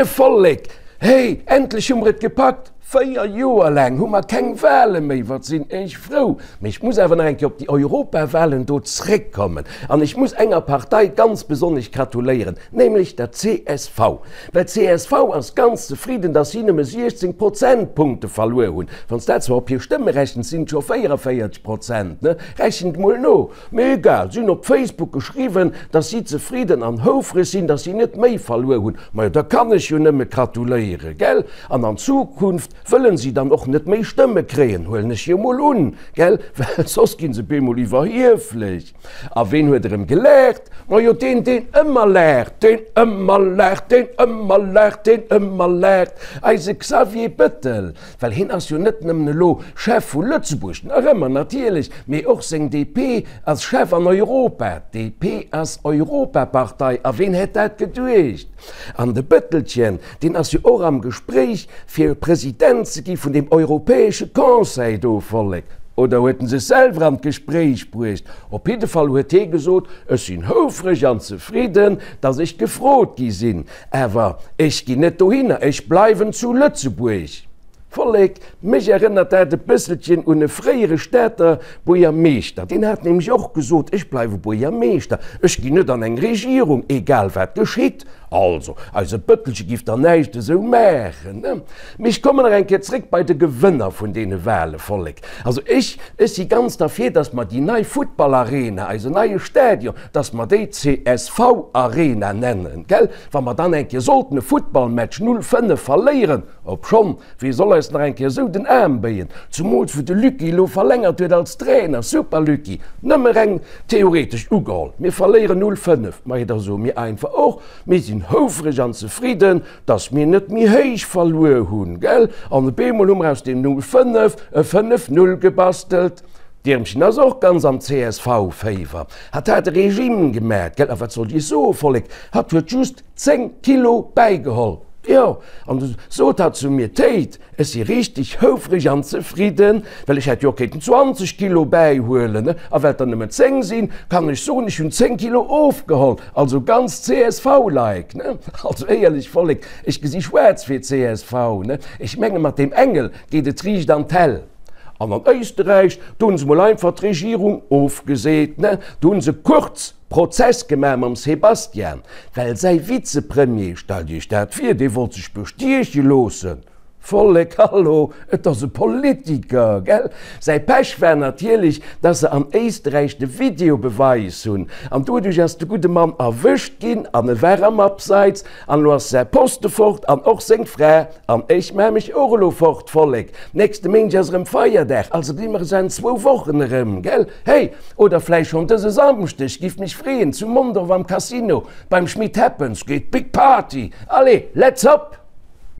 Moie Vollek! Hey, endlech hu mer et gepackt! 4 Joer laang hu mer keng Wale méi, wat sinn ech frou! Mee ech muss awer nach eng Kéier op déi Europawalen do zréckkommen an ech muss enger Partei ganz besonnesch gratuléieren, nämlech der csv. Well d'CSV ass ganz zefridden, datt si nëmme 16 Prozentpunkte verluer hunn. Wann s dat zwar op hir Stëmme rechens, sinn et scho 44 Prozent, ne? Rechent mol no! Mee egal, si hunn op Facebook geschriwwen, dass si zefridden an houfreg sinn, dass si net méi verluer hunn. Majo, da kann ech jo nëmme gratuléieren, gell? An an Zukunft wëllen si dann och net méi Stëmme kréien, huelen ech jo mol un, gell? Well soss ginn se bemol iwwerhieflech. A ween huet erëm gelaacht? Majo, deen, deen ëmmer laacht, deen ëmmer laacht, deen ëmmer laacht, deen ëmmer laacht, eise Xavier Bettel. Well hien ass jo net nëmmen elo Chef vu Lëtzebuerg, nach ëmmer natierlech, mee och seng DP ass Chef an Europa. D'DP ass Europapartei, a ween hätt dat geduecht? An de Bëttelchen, deen ass jo och am Gespréich fir President ze gi vun deem europäesche Conseil do, Vollek. Oder huet en sech selwer an d'Gespréich bruecht? Op jidde Fall huet hie gesot, Ech sinn houfreg an zefridden, datt ech gefrot gi sinn. Awer ech ginn net dohinner, ech bleiwen zu Lëtzebuerg. Vollek, mech erënnert dat e bësselchen un e fréiere Stater Buergermeeschter. Deen hat nämlech och gesot, ech bleiwe Buergermeeschter, ech ginn net an eng Regierung, egal wat geschitt. Also, eise Bëttelche giff der näischt esou maachen, ne? Mee ech kommen nach eng Kéier zréck bei de Gewënner vun deene Wale, Vollek. Also ech, ech si ganz derfir, datt mer déi nei Futtballarena, eisen neie Stadion, dass mer déi csv Arena nennen, gell? Wa mer dann eng Kéier sollten e Futtballmatch 0, 5 verléieren, obschonn, wee soll eis nach eng Kéier esou den Aarm béien, zumools wou de Lucky elo verlängert huet als Trainer, super Lucky, nëmme reng theoretesch ugeholl, mir verléieren 0, 5, majo da soe mir einfach och, mir sinn houfreg an zefridden, dass mir net méi héich verluer hunn, gell? An op eemol hu mer aus deem 0, 5 e 5, 0 gebastelt. D'Iermchen ass och ganz am CSV-Féiwer. Hatt hat e Regime gemat, gell? A wat sollt ech soe, Vollek, hatt huet just 10 Kilo bäigeholl. Jo, an du sot hatt zu mir, Téit, ech si richteg houfreg an zefridden, well ech hätt jo och kéinten 20 Kilo bäihuelen, a well et der nëmmen 10 sinn, kann ech soen, ech hunn 10 Kilo ofgeholl. Also ganz CSV-like, ne? Also éierlech, Vollek, ech gesi schwaarz fir csv, ne? Ech menge mat deem Engel geet et riicht an d'Häll. An an Éisterräich, do hunn se mol einfach d'Regierung ofgeseet, ne? Do hunn se Kurz Prozess gemaach mam Sebastian, well säi Vizepremier, stellt Iech dat vir, dee wollt sech bestieche loossen. Vollek, hallo, et ass e Politiker, gell? Säi Pech war natierlech, dass se an Éisterräich de Videobeweis hunn, an doduerch ass de gudde Mann erwëscht ginn an e war am Abseits, an elo ass säi Poste fort an och seng Fra. An ech maa mech och elo fort, Vollek. Nächste Méindeg ass erëm Feierdag, also gesi mer es an zwou Wochen erëm, gell? Hey, oder vläicht schonn dëse Samschdeg, giff mech freeën, zu Mondorf am Casino, beim Schmit Happens geet Big Party. Allez, let's hop!